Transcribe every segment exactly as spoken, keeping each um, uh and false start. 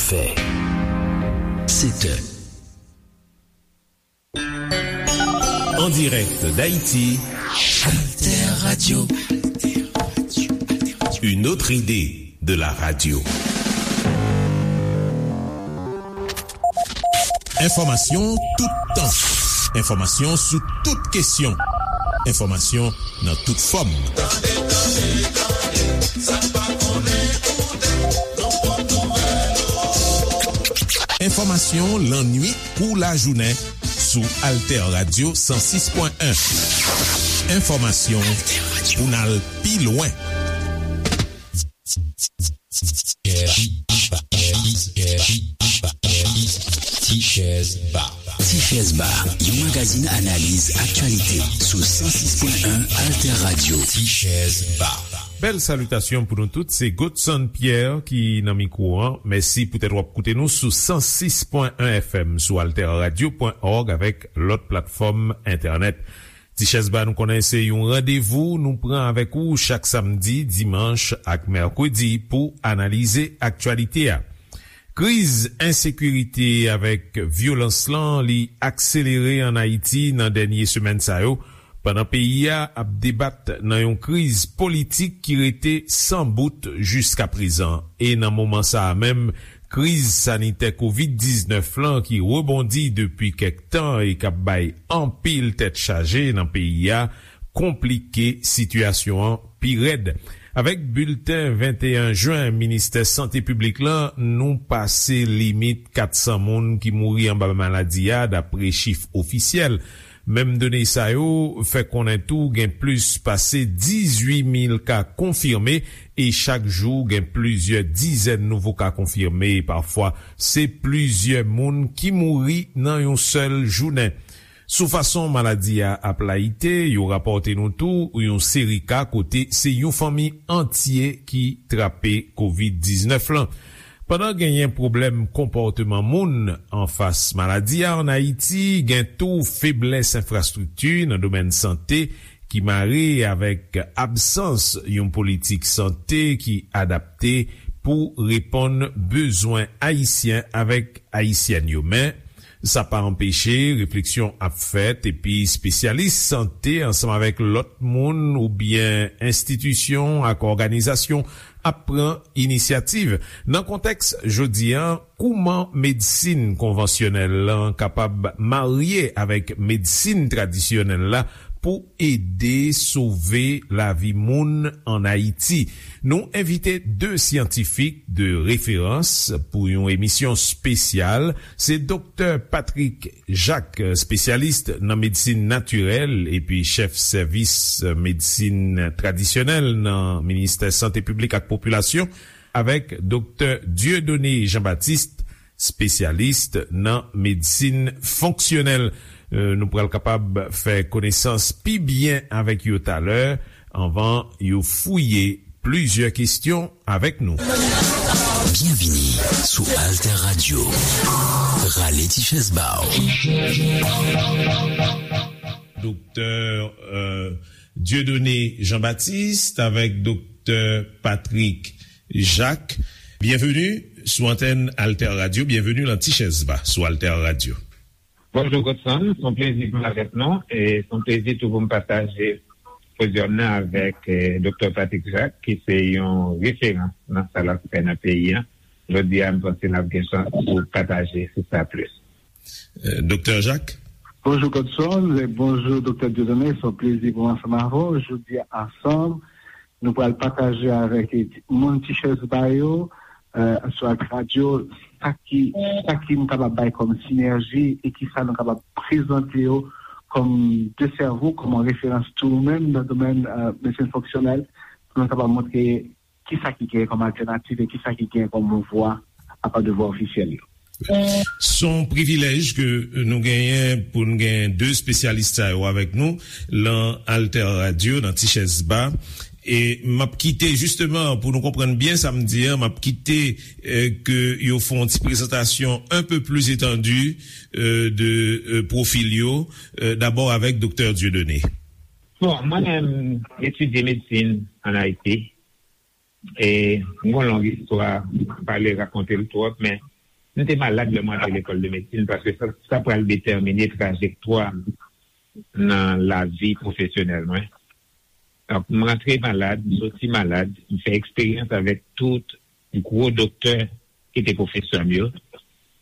Fè. Sèt è. En direct d'Haïti, Alter Radio. Une autre idée de la radio. Enfòmasyon toutan. Enfòmasyon sou tout kesyon. Enfòmasyon nan tout fòm. Tande, tande, tande, sa n pa konnen koute, nan pòt nouvèl. Enfòmasyon lannuit kou lajounen sou Alter Radio san sis pwen en. Enfòmasyon pou n al pi lwen. Tichèz Ba. Tichèz Ba, yon magazin analiz aktyalite sou san sis pwen en Alter Radio. Tichèz Ba. Bèl salitasyon pou nou tout, se Godson Pierre ki nan mikwo an. Mèsi poutèt w ap koute nou sou san sis pwen en F M, sou alter radio pwen org avèk lòt platfòm entènèt. Tichèz Ba, nou konnen se yon randevou nou pran avèk ou chak samdi, dimanch ak mèkredi pou analize aktyalite a. Kriz ensekirite avèk vyolans lan, li akselere ann Ayiti nan dènye semèn sa yo, pandan peyi a ap debat nan yon kriz politik ki rete san bout jiskaprezan. E nan moman sa a menm, kriz sanitè kovid diznèf lan ki rebondi depi kèk tan e k ap bay anpil tèt chaje nan peyi a, konplike sitiyasyon an pi rèd. Avèk bilten venteyen jen Ministè Sante Piblik lan, nou pase limit kat san moun ki mouri anba maladi a, dapre chif ofisyèl. Menm done sa yo fè konnen tou gen plis pase dizuit mil ka konfime e chak jou gen plizyè dizèn nouvo ka konfime e pafwa se plizyè moun ki mouri nan yon sèl jounen. Sou fason maladi a ap layite, yo rapòte nou tou yon seri ka kote se yon fanmi antye ki trape kovid diznèf lan. Pandan genyen pwoblèm konpòteman moun anfas maladi a ann Ayiti, gen tou feblès enfrastrikti nan domèn sante ki mare avèk absans yon politik sante ki adapte pou reponn bezwen Ayisyen avèk Ayisyèn yo. Men, sa pa anpeche refleksyon ap fèt, epi espesyalis sante ansanm avèk lòt moun oubyen enstitisyon ak òganizasyon ap pran inisyativ. Nan kontèks jodi a, kouman medsin konvansyonèl lan kapab marye avèk medsin tradisyonèl la pou ede sove lavi moun ann Ayiti? Nou envite de syantifik de referans pou yon emisyon espesyal. Se Doktè Patrick Jacques, espesyalis nan medsin natirèl epi chèf sèvis medsin tradisyonèl nan Ministè Sante Piblik ak Popilasyon, avèk Doktè Dieudonné Jean-Baptiste, espesyalis nan medsin fonksyonèl. Euh, nou pral kapab fè konesans pi byen avèk yo talè, anvan yo fouye plizyè kesyon avèk nou. Byenvini sou Alter Radio. Rale ti chèz ba w. Doktè, euh, Dieudonné Jean-Baptiste avèk Doktè Patrick Jacques. Byenveni sou antèn Alter Radio. Byenveni nan Ti Chèz Ba sou Alter Radio. Bonjou, Godson. Se yon plezi pou m avèk nou. E se yon plezi tou pou m pataje podyòm nan avèk, eh, Doktè Patrick Jacques, ki se yon referans nan sa l ap fè nan peyi a. Jodi a, m panse n ap gen chans pou pataje sou sa plis. Eh, Doktè Jacques? Bonjou, Godson, e bonjou, Doktè Dieudonné. Se yon plezi pou m ansanm avè w. Jodi a, ansanm, nou pral pataje avèk moun Ti Chèz Ba yo, eh, sou Alter Radio, sa ki, sa ki nou kapab bay kòm sinèji e kisa nou kapab prezante yo kòm de sèvo, kòm referans tou menm nan domèn, eh, medsin fonksyonèl, pou nou kapab montre kisa ki gen kòm altènativ e kisa ki gen kòm vwa apa de vwa ofisyèl yo. Se yon privilèj ke nou genyen pou n gen de espesyalis sa yo avèk nou lan Alter Radio, nan Ti Chèz Ba. E m ap kite, jisteman, pou nou konprann byen sa m di an, m ap kite, eh, ke yo fè yon ti prezantasyon un peu plus étendue, eh, de, eh, pwofil yo. Eh, dabò avèk Doktè Dieudonné. Bon, mwen menm, m etidye medsin ann Ayiti. E m gon long istwa, m pa vle rakonte l twòp, men M te malad lè mwen antre lekòl de medsin paske sa, sa pral detèmine trajektwa m nan lavi pwofesyonèl mwen. Donk, m rantre malad, m soti malad, m fè eksperyans avèk tout gwo doktè ki te pwofesè m yo.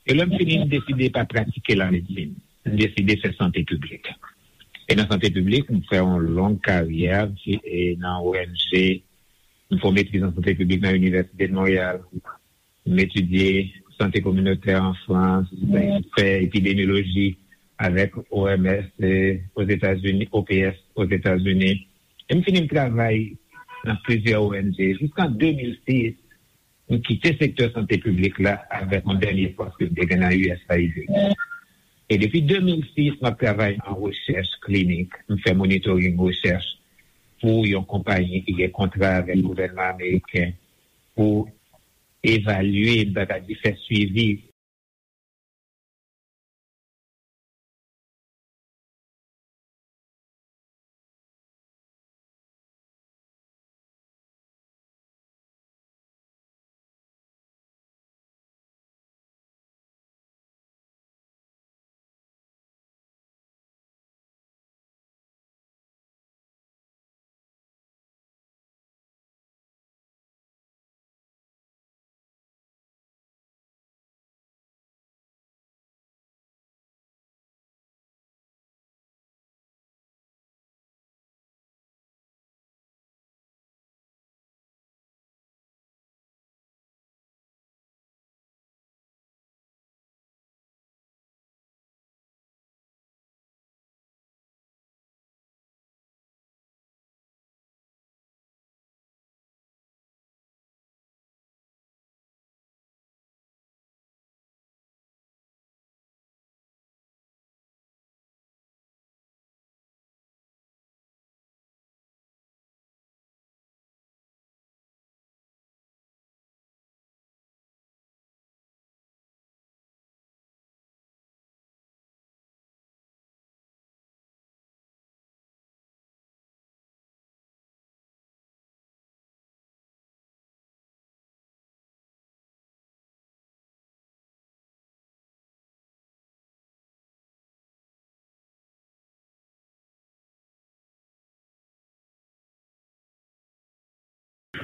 E lè m fini, m deside pa pratike lamedsin. M deside fè sante piblik. E nan sante piblik, m fè yon long karyè e nan O N G. M fè yon metriz an sante piblik nan Inivèsite de Monreyal. M etidye sante kominotè an Frans, m fè epidemyoloji avèk O M S, eh, Ozetazini, O P S Ozetazini. E m fini m travay nan plizyè O N G. Jiska de mil sis, m kite sektè sante piblik la avèk yon dènye pòs ke m te gen nan U S A I D. E depi de mil sis, m ap travay nan rechèch klinik. M fè monitoring rechèch pou yon konpayi ki gen kontra avèk gouvènman ameriken pou evalye, m ta ka di fè swivi.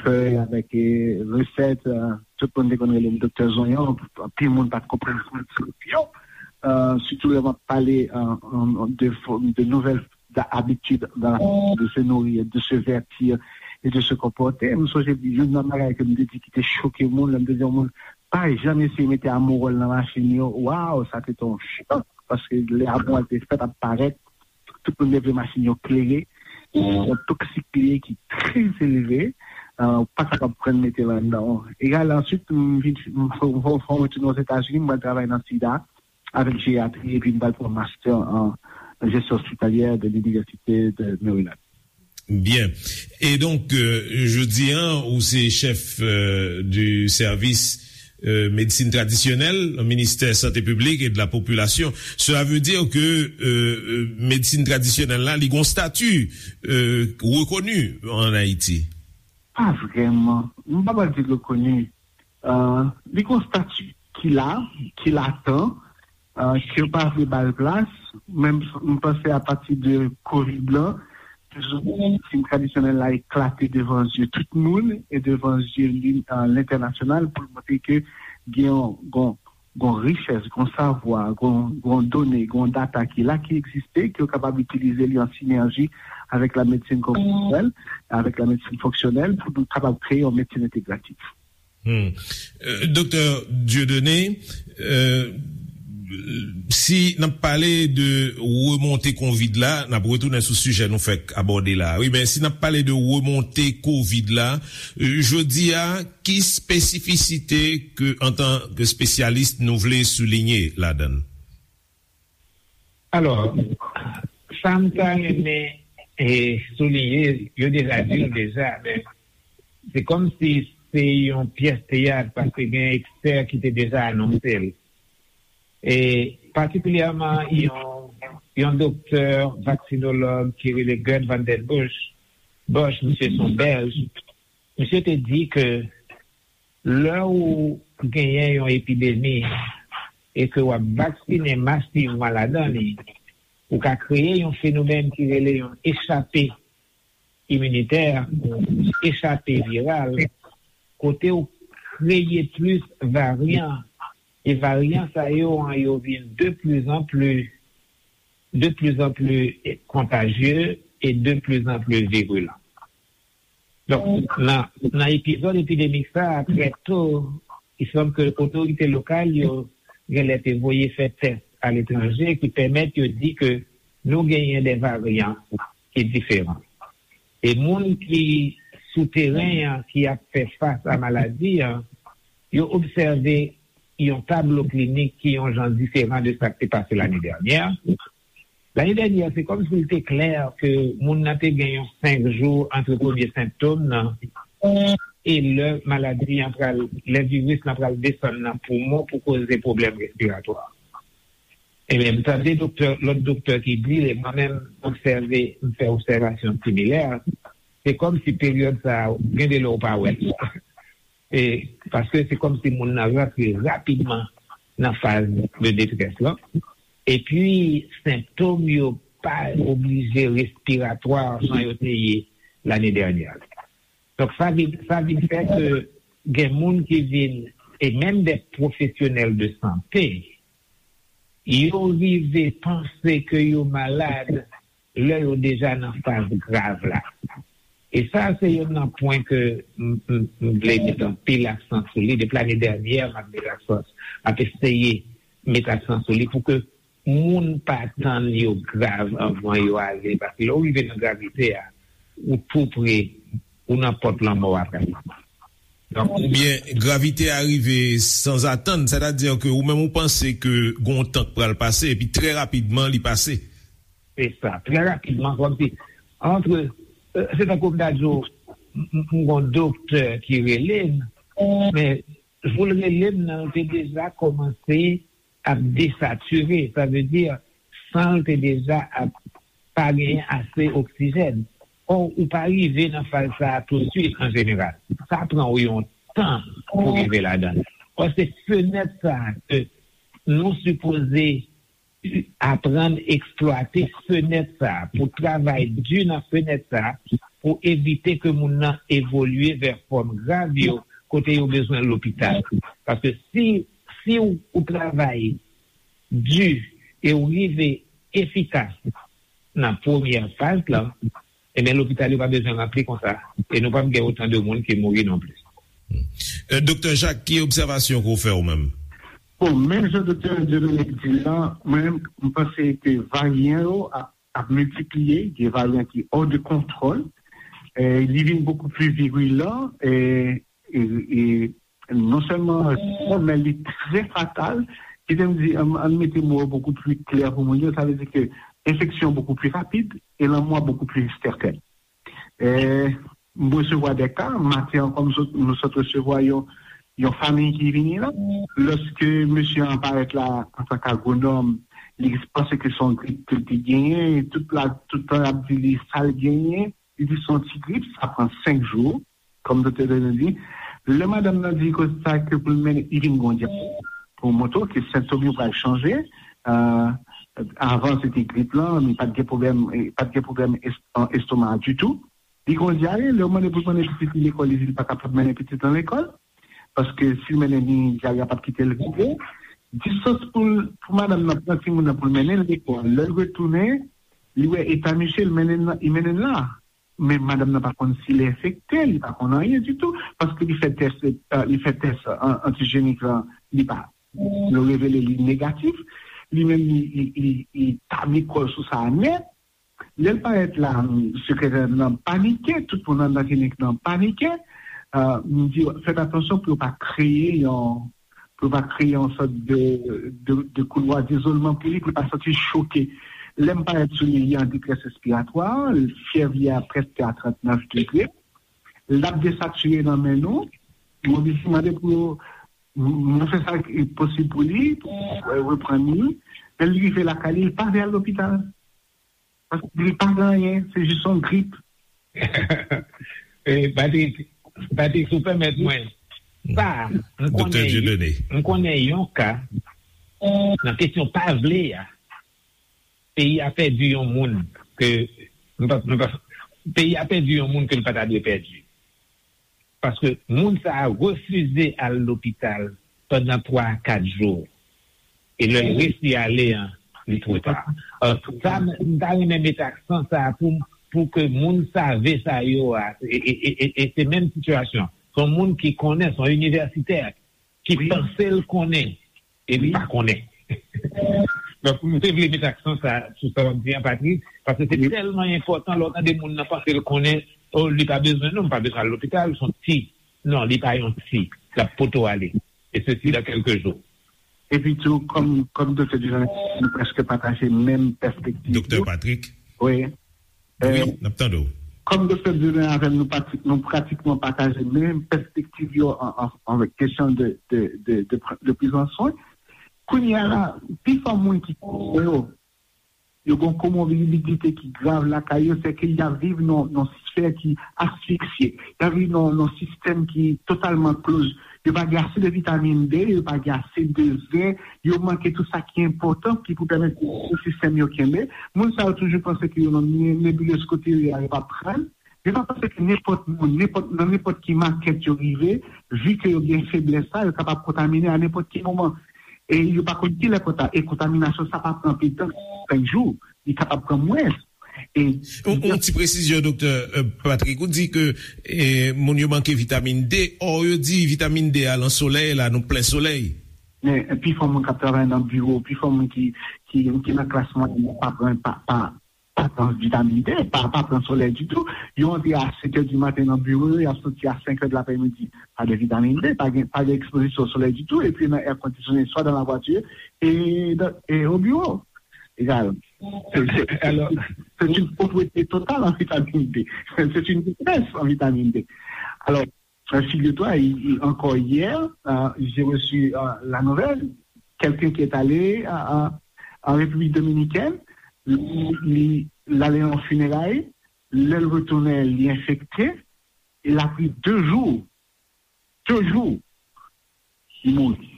Fèy avèk, eh, resèt, eh, tout moun te konn rele m Doktè Zonyon, anpil moun pa t konprann sa m t yo. Eh, sitou lè m ap pale, eh, an, de, fo- de nouvèl da- abitid dans la façon de se nourrir, de se vêtir et de se comporter. M sonje youn nan bagay ke m te di ki te choke moun, lè m te di yon moun, pa janm eseye mete amowòl nan machin yo. Waw, sa te te yon chòk, paske lè amowòl te fèt ap parèt, tout moun te vle machin yo klere. Yon toksik li ye ki trè elve, eh, ou pa kapab pran mete l anndan. Egal, answit, m vin, m fè yon ti Ozetazini, m pral travay nan sida, avèk jeyatri, epi m pral pran master an jesyon ospitalyè de l'Université de Maryland. Byen. E donk, euh, jodi a, ou se chèf, euh, du service, euh, médecine traditionnelle, ministère santé publique et de la population. Cela veut dire que, euh, euh, médecine traditionnelle la, li gon stati, euh, reconnu en Haïti. Pa vrèman. M pa pral di l rekoni. Euh, li gon stati ki la, ki latan, euh, ke yo pa vle ba l plas. Men m, m panse apati de kovid lan, medsin tradisyonèl la eklate devan zye tout moun e devan zye li, euh, lentènasyonal pou l montre ke gen yon, gon, gon richès, gon savwa, gon, gon done, gon data ki la, ki egziste, ke yo kapab itilize li an sinèji avèk la medsin konvansiyonèl, avèk la medsin fonksyonèl, pou nou kapab kreye yon medsin entegratif. Hmm. Euh, Doktè Dieudonné, euh, si n ap pale de remonte kovid la, n ap retounen sou sijè nou fèk abòde la. Wi, men si n ap pale de remonte kovid la, euh, jodi a, ki espesifisite ke, antan ke espesyalis, nou vle souliye ladan l? Alò, sa m ta renmen, eh, souliye, yo deja di l deja, men se kòmsi se yon pyès teyat, paske gen ekspè ki te deja anonse l. E patikilyèman, yon, yon doktè vaksinològ ki rele Gerd van den Bosch, Bosch, misye se yon Bèlj, misye te di ke lè ou genyen yon epidemi, e ke w ap vaksinen masivman ladan li, ou ka kreye yon fenomèn ki rele yon echape iminitè, yon echape viral, kote w kreye plis varyan, e varyan sa yo an yo vin de plus en plus, de plus en plus kontajye e de plus en plus virulan. Donk, nan, nan epizòd epidemik sa a, trè to, i sanm ke otorite lokal yo genlè te voye fè tès aletranje ki pèmèt yo di ke nou genyen de varyan ki diferan. E moun ki sou teren an, ki ap fè fas a maladi an, yo obsève yon tablo klinik ki yon jan diferan de sa k te pase lane dènyè. Lane dènyè, se kòmsi l te klè ke moun nan te gen yon senk jou ant premye sentòm nan e lè maladi an pral, lè viris lan pral desann nan poumon pou koze pwoblèm respiratwa. Ebyen, m tande doktè, lòt doktè ki di, e mwen menm, m obsève, m fè obsèvasyon similè, se kòmsi peryòd sa a, gen de lè w pa wè l. E, paske se kòmsi moun nan rantre rapidman nan faz de detrès lan. Epi, sentòm yo pa oblije respiratwa jan yo te ye lane dènyè. Donk, sa vin, sa vin fè ke gen moun ki vin, e menm de pwofesyonèl de sante, yo rive panse ke yo malad lè yo deja nan faz grav la. E sa, se youn nan pwen ke m, m, m vle met anpil aksan sou li. Depi lane dènyè, m ap met aksan, m ap eseye met aksan sou li pou ke moun pa tann yo grav anvan yo ale. Paske lè w rive nan gravite a, ou tou pre, ou nan pòt lanmò a pratikman. Donk, Oubyen gravite a rive sanzatann, sètadi ke ou menm ou panse ke gon tan k pral pase, epi trè rapidman li pase. Se sa, trè rapidman, kòmsi, antre, euh, se tankou m ta di w, m m- m gon doktè ki rele m, men jou l rele m nan, l te deja kòmanse ap desatire, sa vle di, san l te deja ap pa genyen ase oksijèn. Ò, ou pa rive nan faz sa a touswit an jeneral. Sa pran w yon tan pou rive ladan l. Ò, se fenèt sa a ke nou sipoze aprann eksplwate fenèt sa a, pou travay di nan fenèt sa a, pou evite ke moun nan evolye vè fòm grav yo, kote yo bezwen lopital. Paske si, si w, ou travay di e w rive efikas nan premyè faz lan, ebyen lopital yo pa bezwen ranpli konsa, e nou p ap gen otan de moun ki mouri non plis. Doktè Jacques, ki obsèvasyon ke w fè ou menm? Bon, menm jan Doktè Dieudonné di la, mwen menm, m panse ke varyan yo ap, ap miltipliye, gen varyan ki hors de contrôle, e li vin beaucoup plus virulent, e, e, e non sèlman, men li trè fatal, kite m di, ann, ann mete mo yo beaucoup plus clair pou moun yo, sa vle di ke enfeksyon beaucoup plus rapid e lanmò beaucoup plus certain. E, m resevwa de ka, maten an, kòm sot, nou sot resevwa yon, yon fanmi ki vini la. Lòske mesye an parèt la antanke agwonòm, li panse ke se yon grip ke l te genyen, e tout la, tout tan y ap di li sa l genyen, li di se yon ti grip, sa pran senk jou, kòm doktè Dieudonné di. Lè madanm nan di koze sa ke pou l mennen, li vin gon dyare, pou montre w ke sentòm yo pral chanje. Avan se te grip lan, men pa t gen pwoblèm, pa t gen pwoblèm estoma ditou. Li gon dyare, lè w mande pou l mennen pitit li lekòl, li di li pa kapab mennen pitit lan lekòl. Paske si l mennen li, dyare a p ap kite l rive. Distans pou l, pou madanm nan pran timoun nan pou l mennen l lekòl. Lè l retounen, li wè eta misye, li mennen l la. Men madanm nan pa konn si l enfekte, li pa konn anyen ditou, paske li fè tès, li fè tès antijenik lan, li pa, yo revele li negatif, li menm li, li, li, li tabli kò l sou sa nèt. Lè l parèt la, sekretè nan panike, tout moun anndan klinik nan panike. M di fèt atansyon pou yo pa kreye yon, pou yo pa kreye yon sòt de, de, de koulwa dezolman pou li, pou li pa santi choke. Lè m parèt sou li, li an detrès respiratwa, fyèv li a prèske a trannèf degre. L ap desatire nan men nou. Mwen oblije mande pou yo, mwen fè sa ki posib pou li, pou reprann li. Lè l rive lakay li, li pa vle al lopital. Paske li pa gen anyen, se jis yon grip. Patrick, Patrick, si w pèmèt mwen, sa, m konnen, m konnen yon ka, nan kesyon pa vle a, peyi a pèdi yon moun ke, m pa, m pa, peyi a pèdi yon moun ke l pa ta dwe pèdi. Paske moun sa a refize al lopital pandan twa a kat jou. E lè l resi ale an, li twò ta. Alò, sa, m ta renmen met aksan sa a pou, pou ke moun save sa yo a, e, e, e, e, e se menm sitiyasyon. Se yon moun ki konnen, se yon inivèsitè ki panse l konnen, e li pa konnen. Donk, m te vle met aksan sa, sou sa w ap di an, Patrick, paske se tèlman enpòtan lè w tande moun nan panse l konnen, oh, li pa bezwen non, m pa bezwen al lopital, se yon ti. Non, li pa yon ti. L ap poto ale. E sesi dan kèlke jou. Epi tou, kòm, kòm Doktè Dieudonné, nou prèske pataje menm pèspektiv. Doktè Patrick. Wi. Wi, n ap tande w. Kòm Doktè Dieudonné avè m, nou, pati, nou pratikman pataje menm pèspektiv yo an, an, an kesyon de, de, de, de, de prizan swen. Kounye a la, pifò moun ki konnen yo, yo gen yon komorbidite ki grav lakay yo, se ke y ap viv nan, nan sfè ki asfiksye. Y ap viv nan, nan sistèm ki totalman close. Yo pa gen ase de vitamin D, yo pa gen ase de zen, yo manke tout sa ki enpòtan ki pou pèmèt sistèm yo kenbe. Moun sa yo toujou panse ke yo nan ne- nebilez kote yo ye a, yo p ap pran. Yo pa panse ke nenpòt moun, nenpòt, nan nenpòt ki makèt yo rive, vi ke yo gen feblès sa, yo kapab kontamine a nenpòt ki moman. E yo pa konn kilè konta-, e kontaminasyon sa pa pran anpil tan, senk jou, li kapab pran mwens. E yon, yon ti presizyon, Doktè, euh, Patrick, ou di ke, eh, moun yo manke vitamin D, ò, yo di vitamin D a nan solèy la, nou plen solèy. Men, pifò moun k ap travay nan biwo, pifò moun ki, ki, ki nan klas mwayèn, pa pran, pa, pa, pa pran vitamin D, pa, pa pran solèy ditou. Yo antre a sèt è di maten nan biwo yo, y ap soti a senk è de laprèmidi. Pa de vitamin D, pa gen, pa gen ekspozisyon solèy ditou, epi nan air conditionné, swa dans la voiture et dans, et au bureau. Egal. C'est, c'est, c'est, c'est une pauvreté totale en vitamine D. C'est une détresse en vitamine D. Alors, euh, figure-toi, il- il- encore hier, euh, j'ai reçu, euh, la nouvelle, quelqu'un qui est allé, euh, euh, en République dominicaine, li, li, li ale nan fineray, lè l retounen, li enfekte, il a pris deux jours, deux jours, li mouri.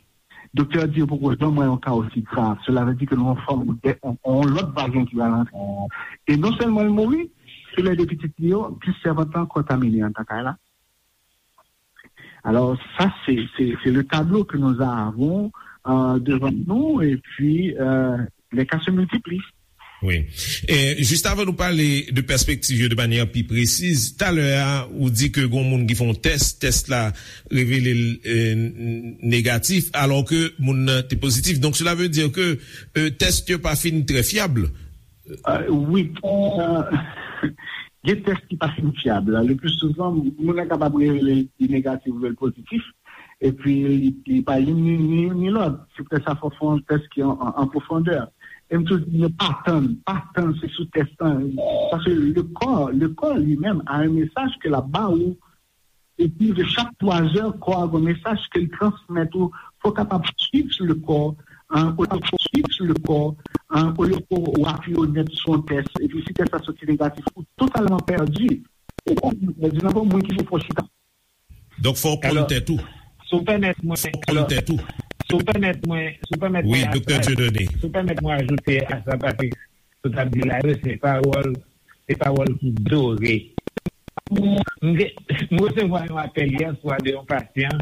Doktè a di yo poko janm wè yon ka osi grav. Cela veut dire que nou an fòm de, on, on lòt varyan ki pral antre. E non sèlman l mouri, se lè de pitit li yo, plis sèvant lan kontamine anndan kay la. Alors, ça, c'est, c'est, c'est le tableau que nous avons, euh, devant nous, et puis, euh, les cas se multiplient. Wi. E, jis avan nou pale de pèspektiv yo de manyè pi presiz, talè a, ou di ke gon moun ki fè yon tès, tès la revele l, e, n- negatif, alò ke moun nan te pozitif. Donk, cela veut dire que, e, tès yo pa fin trè fyab. Euh, wi, euh, gen tès ki pa fin fyab. Le plus souvent, moun nan kapab revele li negatif oubyen l pozitif, epi li, li pa youn ni, ni, ni lòt. Se poutèt sa fò fè yon tès ki an, an, an pwofondè. E m toujou di, pa tann, pa tann se sou tès lan. Paske le corps, le corps lui-même a un message ke l ap ba ou. Epi de chak twa zè, kò a gen mesaj ke l transmèt ou. Fò w kapab swiv le corps, hein, olye w swiv le corps, hein, olye w apiye w nèt sou yon tès, epi si tès la soti negatif, ou totalman pèdi. Ou totalman pèdi, nan bon moun ki fè w chita. Donk, fò w konn tèt ou. Si w pèmèt mwen, si w pèmèt mwen, si w pèmèt mwen, wi, Doktè Dieudonné, si w pèmèt mwen ajoute a sa, Patrick, sa w t ap di la yo, se pawòl, se pawòl ki dore. M te, m resevwa yon apèl yè swa de yon pasyan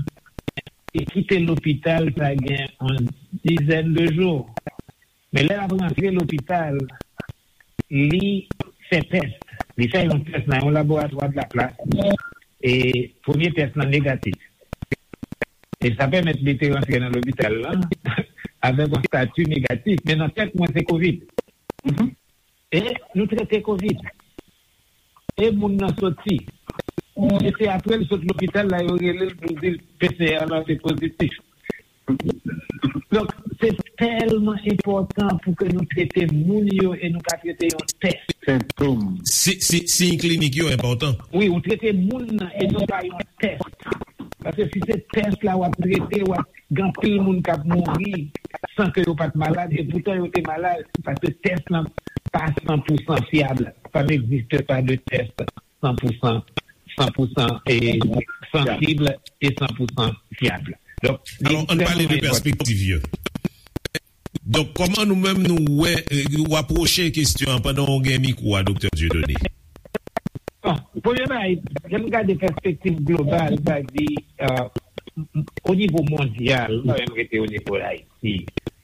ki kite lopital sa gen yon dizèn de jou. Men lè l ap rantre lopital, li fè tès. Li fè yon tès nan yon laboratwa de la plas. E premye tès lan negatif. E sa pèmèt li te rantre nan lopital lan avèk yon estati negatif. Men nan tèt mwen, se kovid. E nou trete kovid. E moun nan soti. E se apre l sot lopital la, yo rele l pou di l P C R lan te pozitif. Donk, se tèlman enpòtan pou ke nou trete moun yo e nou pa trete yon tès. Sentom. Si, si, siy klinik yo enpòtan. Wi, ou trete moun nan e non pa yon tès. Paske si se tès la w ap trete, w ap gen anpil moun k ap mouri san ke yo pa t malad, e poutan yo te malad, paske tès lan pa san pou san fyab. Ça n'existe pas de test cent pour cent, cent pour cent et sensible et cent pour cent fiable. Donk, alò, ann pale de pèspektiv yo. Donk, kòman nou menm nou wè, eh, w apwoche kesyon an pandan w gen mikwo a, Doktè Dieudonné? Bon, premye bagay, lè m gade pèspektiv global, sa di, euh, o nivo mondyal, m pa menm rete o nivo Ayiti,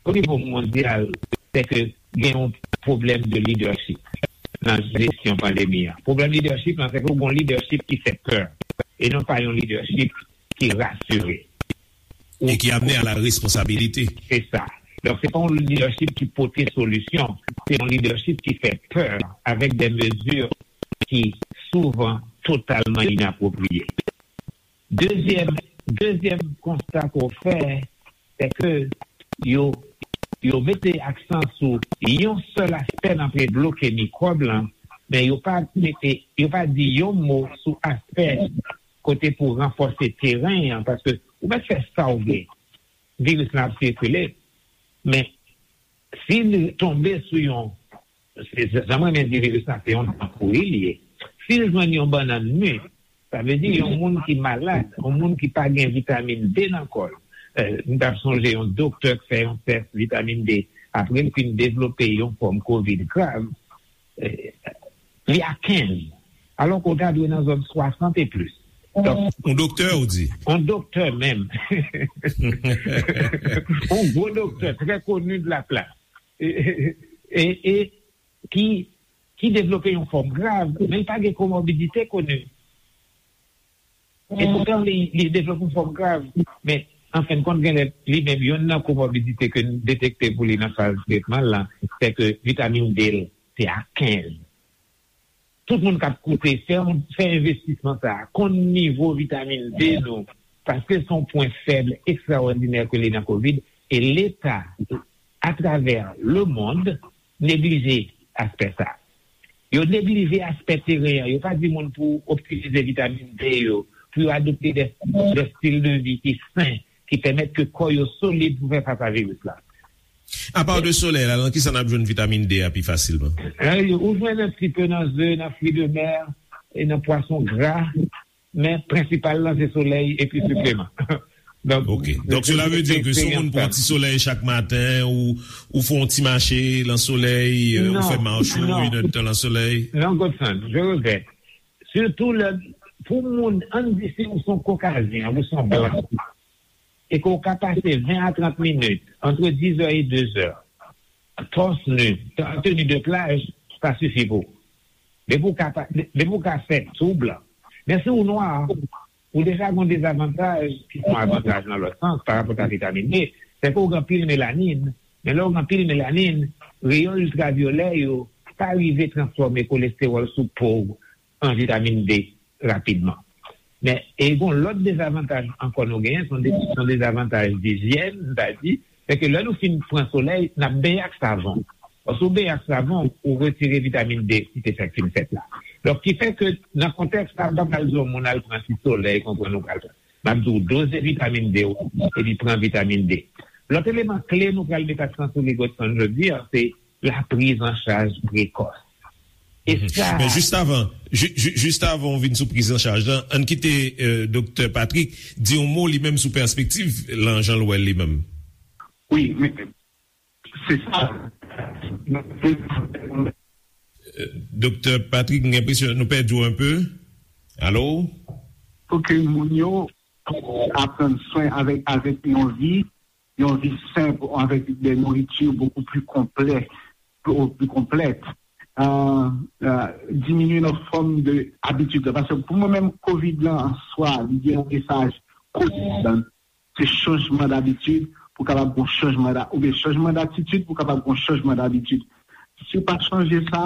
o nivo mondyal, se ke gen yon pwoblèm de lidèchip nan jesyon pandemi an. Pwoblèm lidèchip lan, se ke w gen yon lidèchip ki fè pè, e non pa yon lidèchip ki rasire. E ki amène à la responsabilité. Se sa. Donk, se pa yon lidèchip ki pote solisyon. Se yon lidèchip ki fè pè avèk de mezi ki souvan totalman inapwopriye. Dezyèm, dezyèm konsta ke w fè, se ke yo, yo mete aksan sou yon sèl aspè nan pre bloke mikwòb lan, men yo pa mete, yo pa di yon mo sou aspè kote pou ranfòse teren an, paske ou mèt fè sa w vle, viris lan ap sikile, men si l tonbe sou yon, se, se, jan m renmen di viris la, se yon dan pouri li ye. Si l jwenn yon bannann mi, sa vle di yon moun ki malad, yon moun ki pa gen vitamin D nan kò l. Eh, m t ap sonje yon doktè k fè yon tès vitamin D, apre l fin devlope yon fòm kovid grav, eh, li a kenz. Alò ke w ta dwe nan zòn swasant e plis. Donk, yon doktè, ou di? Yon doktè menm. Yon gwo doktè, trè koni de la plas. E, e, e, e ki, ki devlope yon fòm grav, men li pa gen komorbidite koni. E poutan, li, li devlope yon fòm grav. Men, an fen de kont, genlè, li menm, youn nan komorbidite ke n detekte pou li nan faz tretman l lan, se ke vitamin D l, se a kenz. Tout moun k ap koute, fè, fè envestisman sa a, konn nivo vitamin D nou, paske se yon pwen fèb ekstraòdinè ke li nan kovid, e Leta, atravè lemonn, neglije aspè sa a. Yo neglije aspè teren an. Yo pa di moun pou optimize vitamin D yo, pou yo adopte de, de stil de vi ki sen, ki pèmèt ke kò yo solid pou fè fas a viris la. Apa de solèy la, nan kisa n ap jwenn vitamin D a pi fasilman? Eh, ou jwenn un petit peu nan ze, nan fruits de mer, e nan pwason gra, men prensipal lan se solèy epi sipleman. Donk, ok. Donk, cela veut dire que si yon moun pran ti solèy chak maten, ou, ou fè yon ti mache nan solèy, euh, ou fè mach ou, inèdtan nan solèy. Non, Godson, je regrette. Sitou lè, pou moun, ann di si ou se yon Kokazyen, ou se yon blan, e ke w ka pase ven a trant minit, entre dix heures et deux heures, torse nu, en tenue de plage, sa sifi pou ou. Depi w ka pa, depi w ka fè tou blan. Men si w nwa, ou deja gen yon dezavantaj, ki se yon avantaj nan lòt sans, pa rapò a vitamin D, se ke w gen anpil melanin, men lè w gen anpil melanin, reyon iltravyolè yo pa rive transfòme kolestewòl sou po w an vitamin D rapidman. Men, e gon lòt dezavantaj ankò nou genyen, se yon de, se yon dezavantaj dijyèn, m ta di, se ke lè nou fin pran solèy, n ap benyen ak savon. Paske ou benyen ak savon, ou retire vitamin D ki te fèk fin fèt la. Donk, ki fè ke nan kontèks sa, m pa pral di yon moun al pran ti solèy, konprann ou pral pran. M ap di w doze vitamin D ou, epi pran vitamin D. Lòt eleman kle nou pral met aksan sou li, Godson, jodi a, se la prise en charge précoce. E sa... Men jis avan, ju, ju, jis avan w vin sou prizanchaj lan, ann kite, euh, Doktè Patrick di yon mo li menm sou pèspektiv lan jan l wè l li menm. Wi, men se sa. Euh, Doktè Patrick, m gen enpresyon nou pèdi w un peu. Alo? Pou ke moun yo aprann swen avèk, avèk yon vi, yon vi senp, avèk de nouriti beaucoup plus complet, plus, plus complète. Euh, euh, diminuer notre forme de habitude. Paske pou mwen menm, kovid lan an swa, li gen yon mesaj kovid lan. Se chanjman dabitid pou kapab gon chanjman da, oubyen chanjman datitid pou kapab gon chanjman dabitid. Si w pa chanje sa,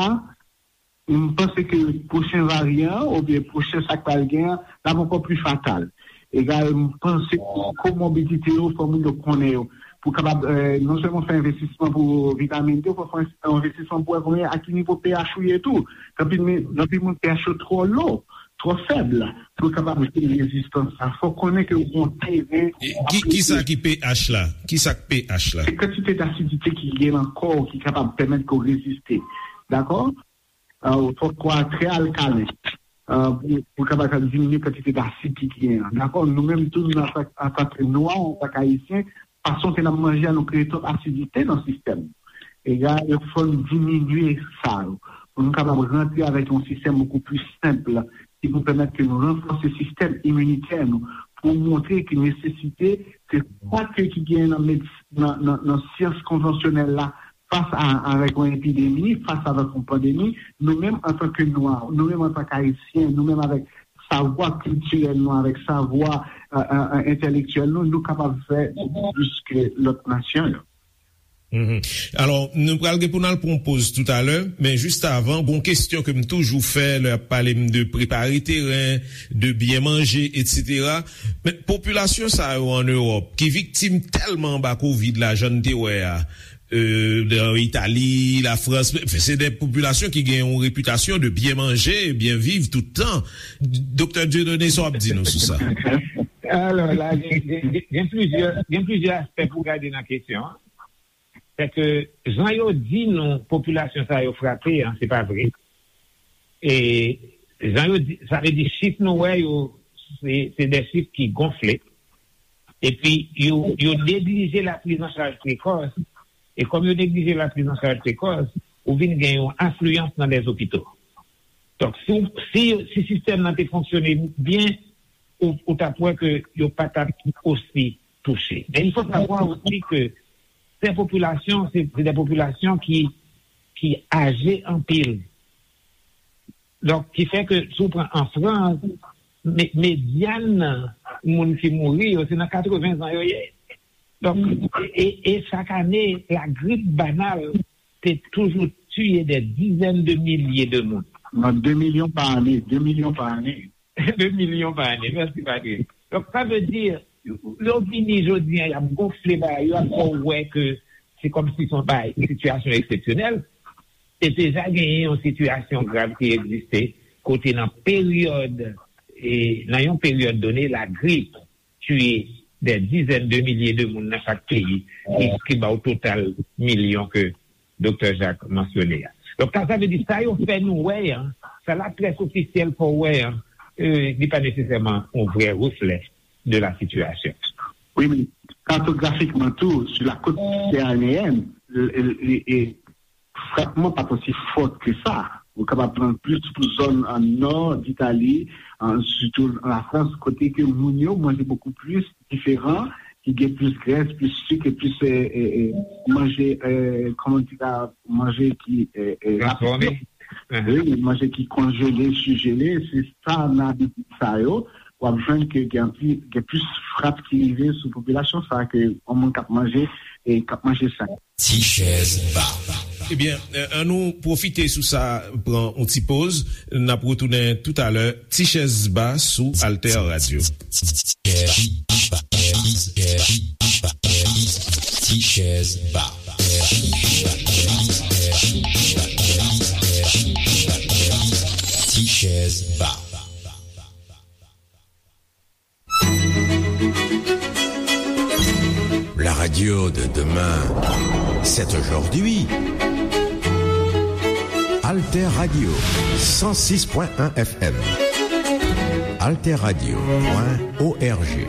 m panse ke pwochen varyan an, oubyen pwochen sa k pral gen an, l ap ankò pli fatal. Egal, m panse ke komorbidite yo, fò moun yo konnen yo. Pou kapab, eh, non sèlman fè envestisman pou vitamin D, fò fè envestisman pou wè konbyen, a ki nivo pH ou ye tou. Gen anpil, gen anpil moun pH yo twò lo, twò fèb, pou yo kapab jwenn rezistans sa. Fò konnen ke w gon teren. E ki, ki sa ki pH la? Ki sa k pH la? Se kantite d'asidite ki gen nan kò w ki kapab pèmèt ke w reziste. Dakò? Euh, fòk kò a trè alkalen, euh, pou, pou kapab diminye kantite d'asid ki, ki gen an. Dakò? Nou menm tou, nou, antan, antan ke nwa, antan ke ayisyen, fason ke n ap manje a, nou kreye twòp asidite nan sistèm. E la, il fò n diminye sa yo. Pou nou kapab rantre avèk yon sistèm bokou pli senp, ki pou pèmèt ke nou ranfòse sistèm iminitè nou, pou montre ki nesesite ke sa ke ki gen nan medis-, nan, nan, nan syans konvansyonèl la, fas a, avèk yon epidemi, fas avèk yon pandemi, nou menm antanke nwa, nou menm antanke ayisyen, nou menm avèk savwa kiltirèl nou, avèk savwa, e, e, e, entèlektyèl nou, nou kapab fè bokou plis ke lòt nasyon yo. Mhm. Alò, nou pral gen pou n al pran yon poz toutalè, men jis avan, gon kesyon ke m toujou fè lè y ap pale m de prepare teren, de byen manje, etsetera. Men popilasyon sa yo ann Ewòp, ki viktim tèlman anba kovid la, jan n te wè a, e, nan Itali, Lafrans, se de popilasyon ki gen yon repitasyon de byen manje, byen viv tout tan. Doktè Dieudonné, sa w ap di nou sou sa? Alò, la, gen, gen, gen, gen plizyè, gen plizyè aspè pou gade nan kesyon an. Se ke jan yo di nou popilasyon sa yo frape an, se pa vre. E jan yo di, sa vle di chif nou wè yo, se, se de chif ki gonfle. Epi yo, yo neglije la priz an chaj prekòs. E kòm yo neglije la priz an chaj prekòs, ou vin gen yon afliyans nan lèzopito. Donk, si, si, si sistèm nan te fonksyone byen, ou, ou t ap wè ke yo pa t ap osi touche. Men il faut savoir aussi que ces populations, c'est, c'est des populations qui, qui âgées anpil. Donk, ki fè ke si w pran an Frans, me-, medyan moun ki mouri yo, se nan katreven zan yo ye. Donk, e, e, e chak ane, lagrip banal te toujou tiye des dizaines de milliers de moun. Nan de milyon pa ane, de milyon pa ane. De milyon pa ane. Mèsi, Patrick. Donk, sa vle di, yo vini jodi an, y ap gonfle bagay, yo ap fè w wè ke se kòmsi se yon bagay, yon sitiyasyon eksepsyonèl. Te deja genyen yon sitiyasyon grav ki egziste, kote nan peryòd, e, nan yon peryòd done, lagrip tiye des dizaines de milliers de moun nan chak peyi, ki, ki ba w total milyon ke Doktè Jacques mansyone a. Donk, sa, sa vle di, sa yo fè nou wè an, sa laprès ofisyèl fè w wè an, e, li pa nesesèman yon vrè reflè de la situation. Wi, men kartografikman tou, sou la côte méditerranéenne, e, e, e, frapman pa t osi fò ke sa. Ou kapab pran plis pou zòn an nò d Itali, an, sitou an Lafrans, kote ke moun yo manje bokou plis diferan, ki gen plis grès, plis sik, e plis, e, e, e, manje, e, kòman di la, manje ki, e, e, rapid. Transfòme. Wi, manje ki konjele, sijele, se sa nan abitid sa yo. W ap jwenn ke gen anpi-, gen plis frap ki rive sou popilasyon sa a ke yon moun k ap manje e k ap manje sa. Ti chèz ba. Ebyen, e, ann nou pwofite sou sa, pran yon ti poz. N ap retounen toutalè. Ti chèz ba sou Alter Radio. Ti chèz ba. Ti chèz ba. La radio de demain, c'est aujourd'hui. Alter Radio, cent six point un F M. Alter Radio point O R G.